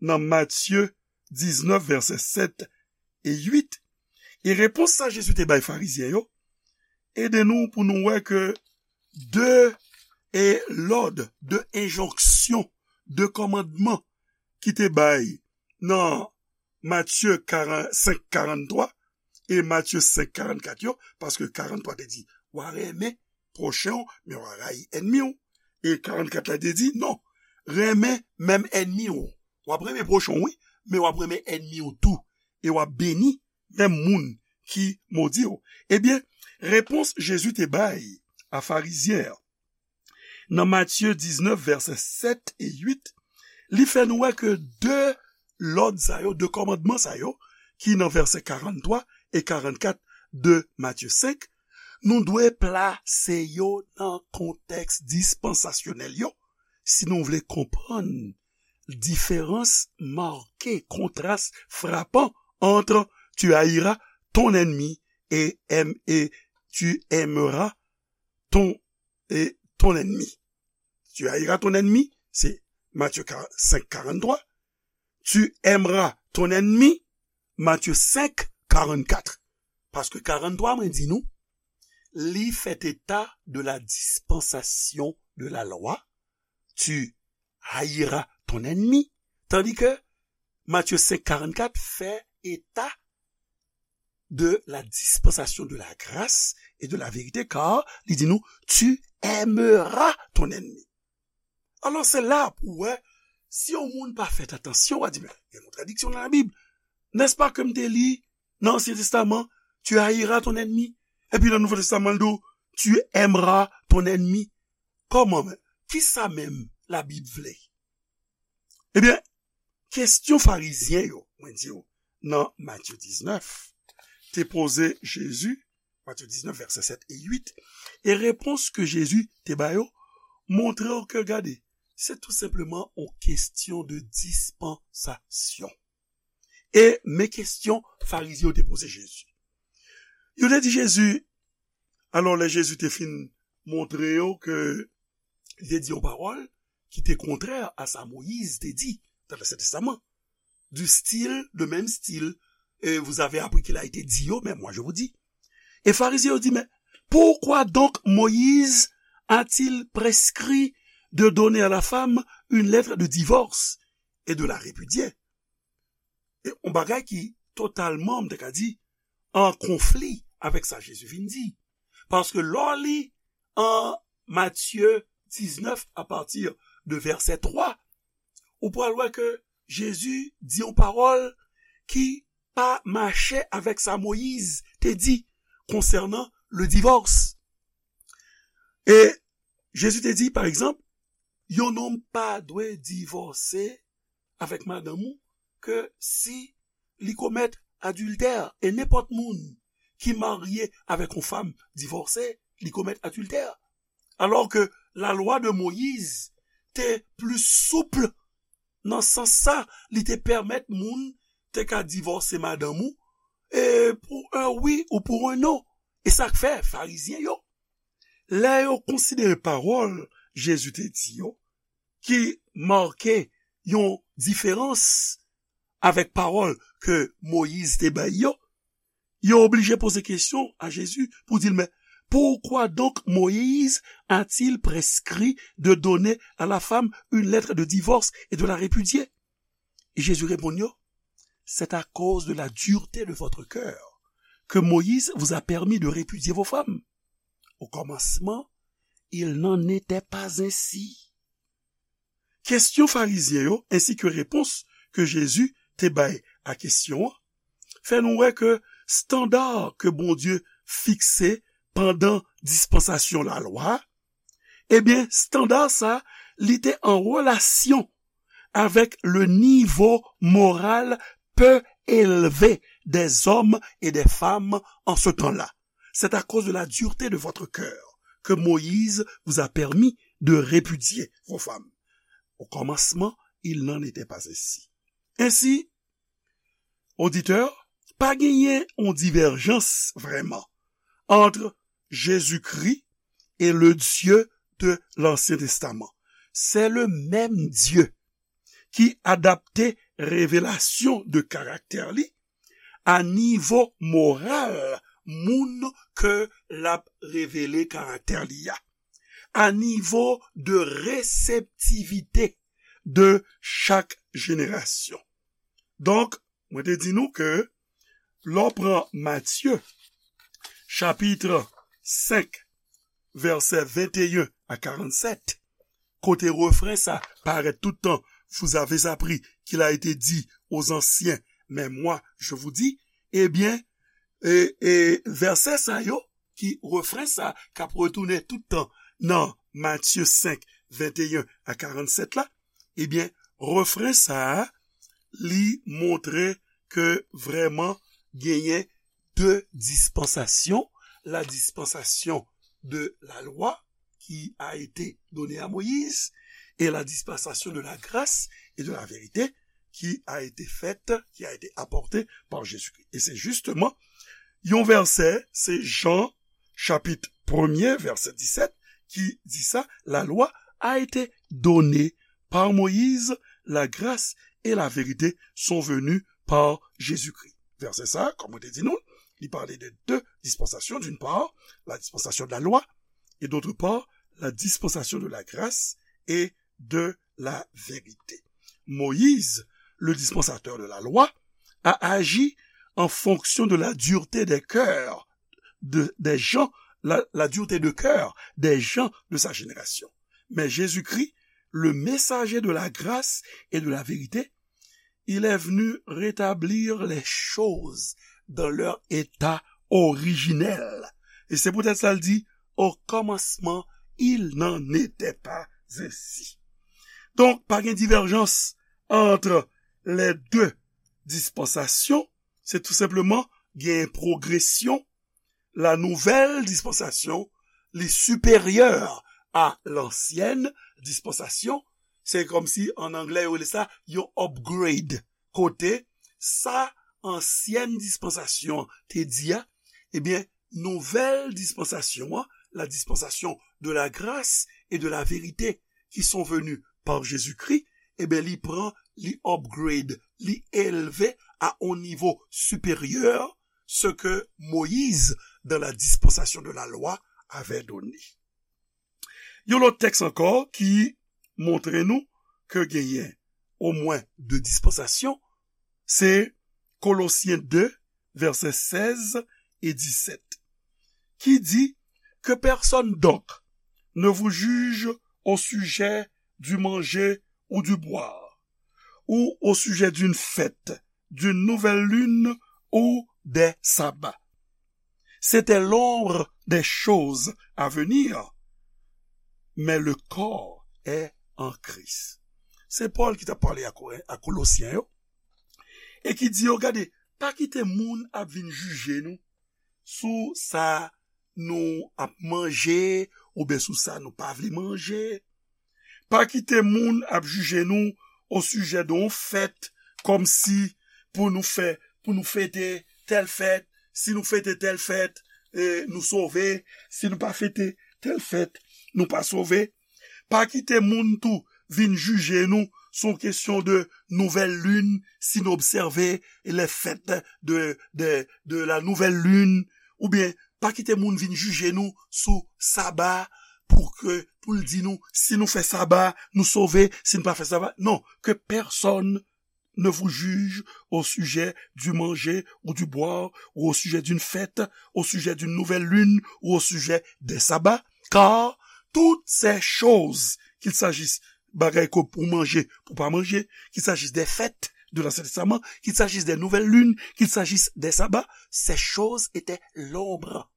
nan Matye diznèf, vèsè sèt e uit. E repons sa Jezi te bay Farizyen yo ede nou pou nou wè ke de e lòd, de enjonksyon, de kòmandman ki te bay nan Matye senk karanntrwa e Matye senk karannkat yo, paske karanntrwa te di, w a renmen pwochen w, men w a rayi ènmi w. E karannkat la te di, non, renmen menm ènmi w. W ap renmen pwochen w, wi, men w ap renmen ènmi w tou. E w ap beni menm moun ki modi w. Ebyen, repons Jezi te bay a Farizyen an nan Matye diznèf, vèsè sèt e uit, li fè nou wè ke de lòd sa yo, de kòmandman sa yo, ki nan vèsè karanntrwa e karannkat de Matye senk, nou dwe plase yo nan kontèks dispansasyonèl yo, si nou vle konprann diferans make, kontras frapan entre tu haïras ton ennemi et, et tu aimeras ton, et ton ennemi. Tu haïras ton ennemi, se Matye senk karanntrwa. Tu aimeras ton ennemi, Matye senk karannkat. Paske karanntrwa, mwen di nou, li fè eta de la dispensation de la loi. Tu haïras ton ennemi. Tandis que Matye senk karannkat fè eta de la dispensation de la grâce et de la vérité, car li di nou, tu aimeras ton ennemi. Alò, se la pou wè, si yon moun pa fè atansyon, w a di, men, gen kontradiksyon nan Labib. N'est-ce pas que m te li nan Ansyen Testaman, tu haïras ton ennemi? Epi nan Nouvo Testaman, l di w, tu aimeras ton ennemi. Kòman menm? Kisa menm Labib vle? Ebyen, kesyon Farizyen yo, mwen di w, nan Matye diznèf, te poze Jezi, Matye diznèf, vèsè sèt e uit, e repons ke Jezi te ba yo, montre w ke, gade, se tou senpleman yon kesyon de dispansasyon. E men kesyon Farizyen yo te poze Jezi. Yo te di Jezi, alò lè Jezi te fin montre yo ke li te di yon pawòl ki te kontrè a sa Moyiz te di nan Ansyen Testaman. Du style, de même style, euh, vous avez appris qu'il a été dit, oh, mais moi je vous dis. E Farizyen yo di, mais pourquoi donc Moïse a-t-il prescrit de donner à la femme une lettre de divorce et de la répudier? E yon bagay ki totalman, m te ka di, an konfli avèk sa Jezi vin di. Paske lè w li an Matye diznèf, apati de vèsè twa, ou pral wè ke Jezi di yon pawòl ki pa mache avèk sa Moyiz te di konsènan le divòs. E Jezi te di, pa egzanp, yon nonm pa dwe divòse avèk madanm ou ke si li komèt adiltè. E nenpòt moun ki marye avèk yon fanm divòse, li komèt adiltè. Alò ke lalwa de Moyiz te pli soup nan sans sa, li te pèmèt moun te ka divòse madanm ou, e pou yon wi ou pou yon non. E sa k fè Farizyen yo, lè yo konsidere pawòl Jezi te di yo, ki make yon diferans avèk pawòl ke Moyiz te bay yo, yo oblije poze kesyon a Jezi pou di l, mais pourquoi donc Moïse a-t-il prescrit de donner à la femme une lettre de divorce et de la répudier? Et Jésus répond yo, c'est à cause de la dureté de votre cœur que Moïse vous a permis de répudier vos femmes. Au commencement, il n'en était pas ainsi. Kesyon Farizyen yo ensi ke repons ke Jezi te bay a kesyon an fè nou wè ke estanda ke Bondye fikse pandan dispansasyon lalwa, ebyen, estanda sa, li te an relasyon avec le niveau moral peu élevé des hommes et des femmes en ce temps-là. C'est à cause de la dureté de votre cœur que Moïse vous a permis de répudier vos femmes. Au commencement, il n'en était pas ainsi. Ensi, oditè, pa genyen yon divèjans vrèman ant Jezikri e le Dye de Lansyen Testaman. Se le menm Dye ki adapte revelasyon de karaktè li a nivo moral moun ke l ap revele karaktè li a, a nivo de reseptivite de chak jenerasyon. Donk, mwen te di nou ke lè w pran Matye, chapit senk, vèsè venteyen a karannsèt, kote refren sa parèt tout tan, vous avez appris qu'il a été dit aux anciens, mais moi, je vous dis, ebyen, e, e, vèsè sa yo, ki refren sa, k ap retounen tout tan nan Matye senk, venteyen a karannsèt la, ebyen, refren sa a, li montre ke vrèman genyen de dispansasyon, la dispensation de la loi qui a été donnée à Moïse et la dispensation de la grâce et de la vérité qui a été faite, qui a été apportée par Jésus-Christ. Et c'est justement yon vèsè, se Jan chapit premye, vèsè disèt, ki di sa, la loi a été donnée par Moïse, la grâce et la vérité sont venues par Jésus-Christ. Vèsè sa, kòm mwen te di nou, li pale de de dispansasyon, d'une part, la dispensation de la loi, et d'autre part, la dispensation de la grâce et de la vérité. Moïse, le dispensateur de la loi, a agi en fonction de la dureté des cœurs de, des gens, la, la dureté de cœur des gens de sa génération. Mais Jésus-Christ, le messager de la grâce et de la vérité, il est venu rétablir les choses dans leur état originel. E se poutèt sa l di, au commencement, il n'en était pas ainsi. Donk, pa gen divèjans ant les deux dispensations, se tou senpleman gen pwogresyon. La nouvelle dispensation, li siperyè a lansyèn dispansasyon. Se kòmsi, an anglè, yo rele sa yon upgrade. Kote sa ansyèn dispansasyon te di a, ebyen, nouvèl dispansasyon an, la dispensation de la grâce et de la vérité qui sont venues par Jésus-Christ, ebyen, li pran, li upgrade, li elve a yon nivo siperyè ce que Moïse, dans la dispensation de la loi, avait donné. Yon lòt tèks ankò ki montre nou ke genyen omwen de dispansasyon, se Kolosyen de, vèsè sèz e disèt, ki di, que personne donc ne vous juge au sujet du manger ou du boire, ou au sujet d'une fête, d'une nouvelle lune ou des sabbats. C'était l'ombre des choses à venir. mais le corps est en Christ. Se Pòl ki t ap pale a Koren-, a Kolosyen yo, e ki di yo, gade, pa kite moun ap vin jije nou sou sa nou ap manje, oubyen sou sa nou pa vle manje. Pa kite moun ap jije nou o sijè de yon fèt, kòmsi pou nou fè, pou nou fete tèl fèt, si nou fete tèl fèt, e, nou sove, si nou pa fete tèl fèt, nou pa sove. Pa kite moun tou vin jije nou sou kesyon de nouvèl lin, si nou obsève les fêtes de, de, de la nouvelle lune, oubyen pa kite moun vin jije nou sou saba pou ke, pou l di nou, si nou fè saba, nou sove, si nou pa fè saba. Non, que personne ne vous juge au sujet du manger ou du boire, ou au sujet d'une fête, au sujet d'une nouvelle lune, ou au sujet des sabbats, car toutes ces choses, qu'il s'agisse bagay ke pou manje, pou pa manje, qu'il s'agisse des fêtes de l'Ancien Testament, qu'il s'agisse des nouvelles lunes, qu'il s'agisse des sabbats, ces choses étaient l'ombre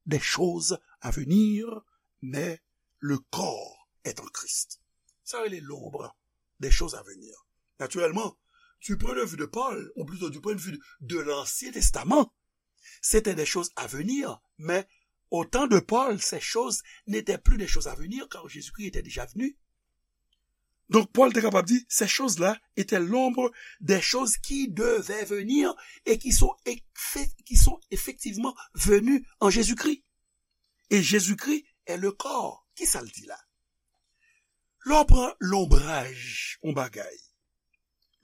des choses à venir, mais le corps est en Christ. Sa rele l'ombre des choses à venir. Naturellement, du point de vue de Paul, ou plutôt du point de vue de l'Ancien Testament, c'était des choses à venir, mais au temps de Paul, ces choses n'étaient plus des choses à venir, car Jésus-Christ était déjà venu. Donc, Paul était capable de dire, ces choses-là étaient l'ombre des choses qui devaient venir et qui sont, effe- qui sont effectivement venues en Jésus-Christ. Et Jésus-Christ est le corps. Ki sa l di la? Lè w pran lonbraj yon bagay,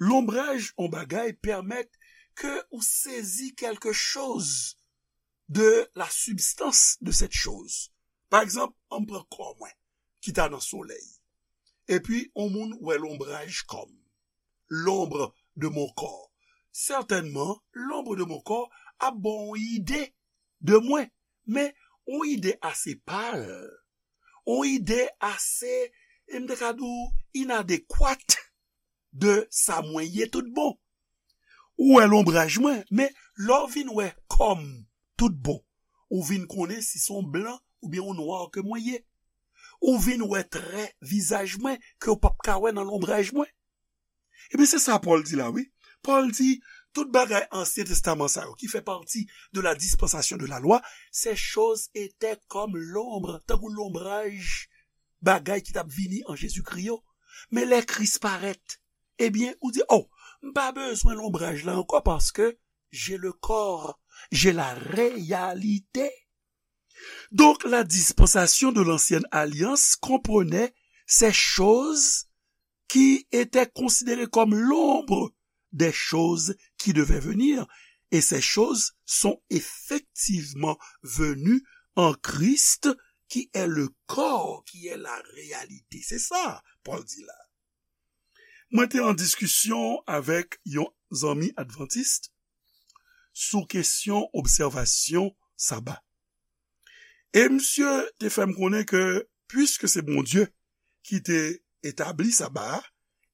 lonbraj yon bagay pèmèt ke ou sezi quelque chose de la substance de cette chose. Pa egzanp, an m pran kò mwen ki ta nan solèy. Epi, yon moun wè lonbraj kò m. L'ombre de mon corps. Sètènman, l'ombre de mon corps ap ba w yon ide de mwen. Men, yon ide ase pal. Yon ide ase, e m te ka di w, inadekwat de sa mwen ye tout bon. Ou wè lonbraj mwen, men lè w vin wè kò m tout bon, ou vin konnen si se yon blan oubyen yon nwa ke mwen ye. Ou vin wè trè vizaj mwen ke w p ap ka wè nan lonbraj mwen. Ebyen, se sa Pòl di la, wi. Pòl di, tout bagay Ansyen Testaman sa yo, ki fè pati de la dispensation de la loi, ces choses étaient comme l'ombre, tankou lonbraj bagay ki t ap vini an Jezikri yo. Men lè Kris parèt, ebyen, ou di, oh, m pa bezwen lonbraj la ankò, paske j'ai le corps, j'ai la réalité. Donc, la dispensation de l'ancienne alliance comprenait ces choses qui étaient considérées comme l'ombre des choses qui devaient venir. Et ces choses sont effectivement venues en Christ, qui est le corps, qui est la réalité. Se sa Pòl di la. Mwen te an diskisyon avèk yon zanmi advantis sou kesyon obsèvasyon saba. E misye te fè m konnen ke, piske se Bondye ki te etabli saba a,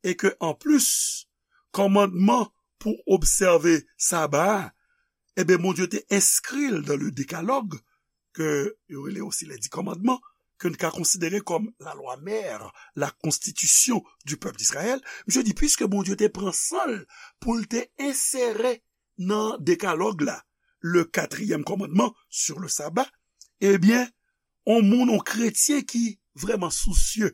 e ke anplis, kòmandman pou obsève saba a, ebyen, Bondye te enskri l dans le Décalogue, ke yo rele osi les dix commandements, ke n ka konsidere kòm la loi mère, la constitution du peuple d'Israël. Misye di, piske Bondye te pran san l pou l te ensere nan Dekalòg la, le quatrième commandement sur le sabbat, ebyen, on moun, on kretyen ki vrèman sousye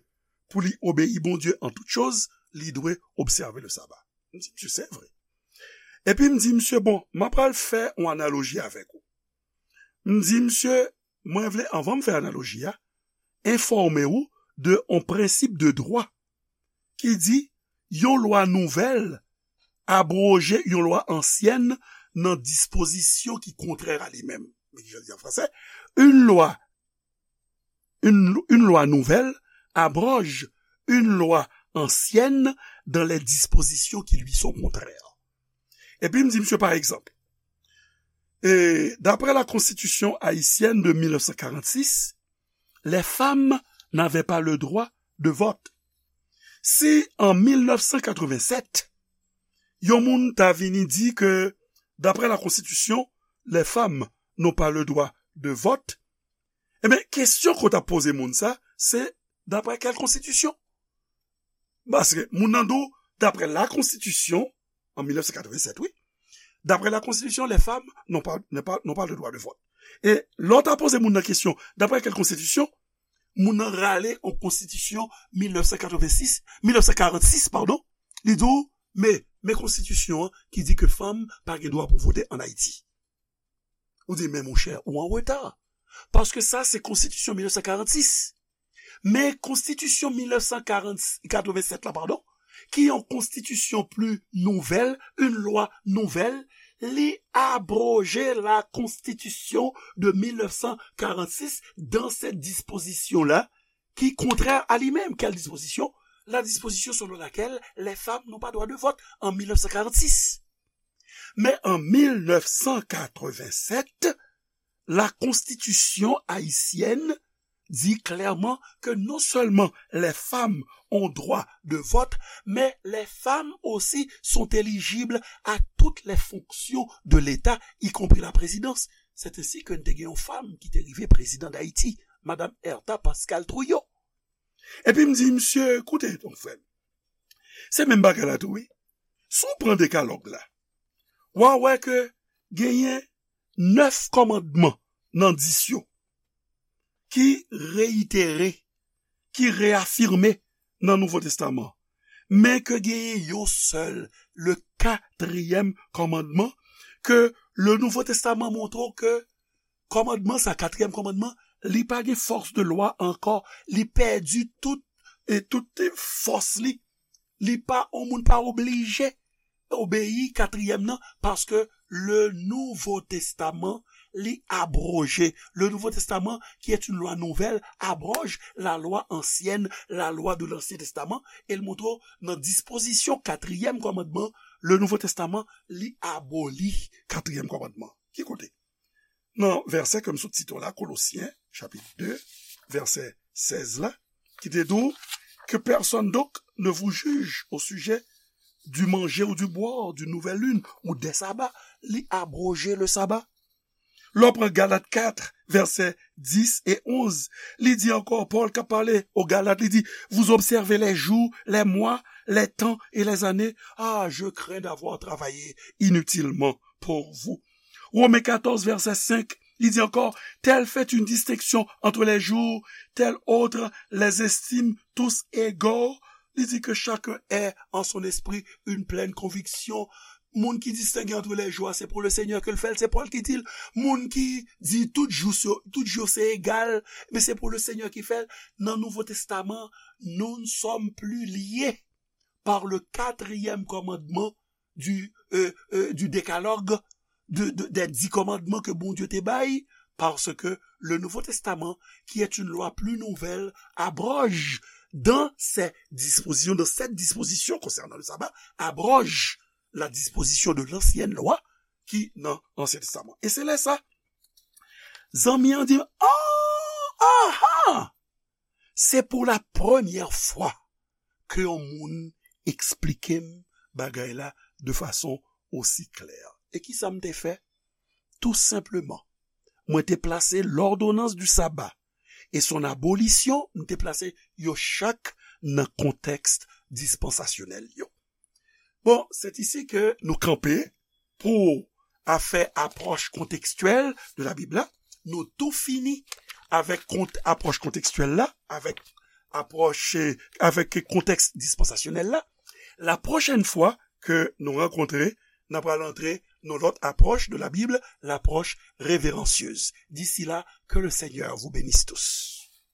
pou li obeyi Bondye an tout choz, li dwe obsève le saba. M di, misye, se vre. Epi m di, misye, bon, m ap pral fè yon analoji avèk ou. M di, misye, mwen vle, anvan m fè analoji a, enfòme ou de yon prensip de dwa ki di yon lwa nouvèl abwoje yon lwa ansyèn nan dispozisyon ki kontrè a li menm. Men ki jan l di an fransè, une loi, une, une loi nouvelle abroge une loi ancienne dans les dispositions qui lui sont contraires. Epi m di misye, pa egzanp, e, d'après la Constitution haïtienne de mille neuf cent quarante-six, les femmes n'avaient pas le droit de vote. Si an mil nèf san katrevennsèt, yon moun ta vini di ke, d'après la Constitution, les femmes n'ont pas le droit de vote, ebyen, kesyon ke w t ap poze moun sa, se D'après quelle constitution? Paske moun nan di w, d'après la constitution, en mille neuf cent quatre-vingt-sept, wi, d'après la constitution, les femmes n'ont pas, n'ont pas, n'ont pas le droit de vote. E lè w ta poze moun nan kesyon, d'après quelle constitution, moun nan rale an konstitisyon mil nèf san katrevensis, mil nèf san karansis, padon, li di w, men, men konstitisyon an ki di ke fanm pa gen dwa pou vote ann Ayiti. Ou di, men monchè, ou an reta. Paske sa, se konstitisyon mil nèf san karansis. Men konstitisyon mil nèf san katrevennsèt la, padon, ki yon konstitisyon pli nouvèl, une loi nouvelle, li abroje la constitution de mil nèf san karansis dans cette disposition-là, qui est contraire à lui-même. Quelle disposition? La disposition selon laquelle les femmes n'ont pas droit de vote en mille neuf cent quarante-six. Mais en mille neuf cent quatre-vingt-sept, la constitution haïtienne dit clairement que non seulement les femmes ont droit de vote, mais les femmes aussi sont éligibles à toutes les fonctions de l'État, y compris la présidence. C'est ainsi que te gen yon fanm ki te rive président d'Haïti, Madame Hertha Pascal Trouillot. Epi m di, misye, koute, ton frè m. Se menm bagay la tou, wi. Si w pran dekalòg la, w a wè ke genyen nèf kòmandman nan dis yo ki reyitere, ki reyafime nan Nouvo Testaman. Men ke genyen yon sèl, le katriyèm kòmandman, ke le Nouvo Testaman montre w ke kòmandman sa, katriyèm kòmandman, li pa gen fòs de lwa ankò, li pèdi tout, e tout fòs li. Li pa, yon moun pa oblije obeyi katriyèm nan, paske le Nouveau Testament li abroje. Le Nouveau Testament, qui est une loi nouvelle, abroge la loi ancienne, la loi de l'Ancien Testament, e l montre w nan dispozisyon katriyèm kòmandman, le Nouveau Testament li aboli katriyèm kòmandman. Ki kote? Nan vèsè ke m sot site w la, Kolosyen, chapit de, vèsè sèz la, ki te di w, que personne donc ne vous juge au sujet du manger ou du boire, d'une nouvelle lune ou des sabbats, li abroje le sabbat. Lè w pran Galat kat, vèsè dis e onz, li di ankò, Pòl k ap pale o Galat, li di, vous observez les jours, les mois, les temps et les années. Ah, je crains d'avoir travaillé inutilement pour vous. Romen katòz, vèsè senk, li di ankò, tel fait une distinction entre les jours, tel autre les estime tous égaux. Li di que chacun ait en son esprit une pleine conviction. Moun ki distenge ant lè jou a, se pou le Senyè ke l fè l, se Pòl ki di l. Moun ki di tout jou se, tout jou se egal, men se pou le Senyè ki fè l. Nan Nouvo Testaman, nous ne sommes plus liés par le quatrième commandement du, euh, euh, du décalogue, de, de, des dix commandements que Bondye te bay, parce que le Nouveau Testament, qui est une loi plus nouvelle, abroge dans ses dispositions, dans cette disposition concernant le sabbat, abroge la disposition de l'ancienne loi ki nan Ansyen Testaman. E se lè sa, zanmi an di, oh, aha! Se pou la premyè fwa ke yon moun eksplike m bagay la de fason osi klè. E kisa m te fè? Tou senpleman, mwen te plase l'ordonnance du sabbat et son abolition, m te plase yo chak nan kontèks dispansasyonèl yo. Bon, c'est ici que nous campons pour afè apwòch kontekstyèl de la Bible la. Nou tou fini avèk kont, apwòch kontekstyèl la, avèk apwòch, eh, avèk kontèks dispansasyonèl la. La pwochèn fwa ke nou rankontre, n ap pral antre nan lòt apwòch de la Bible, l'approche révérencieuse. D'ici là, que le Seigneur vous bénisse tous.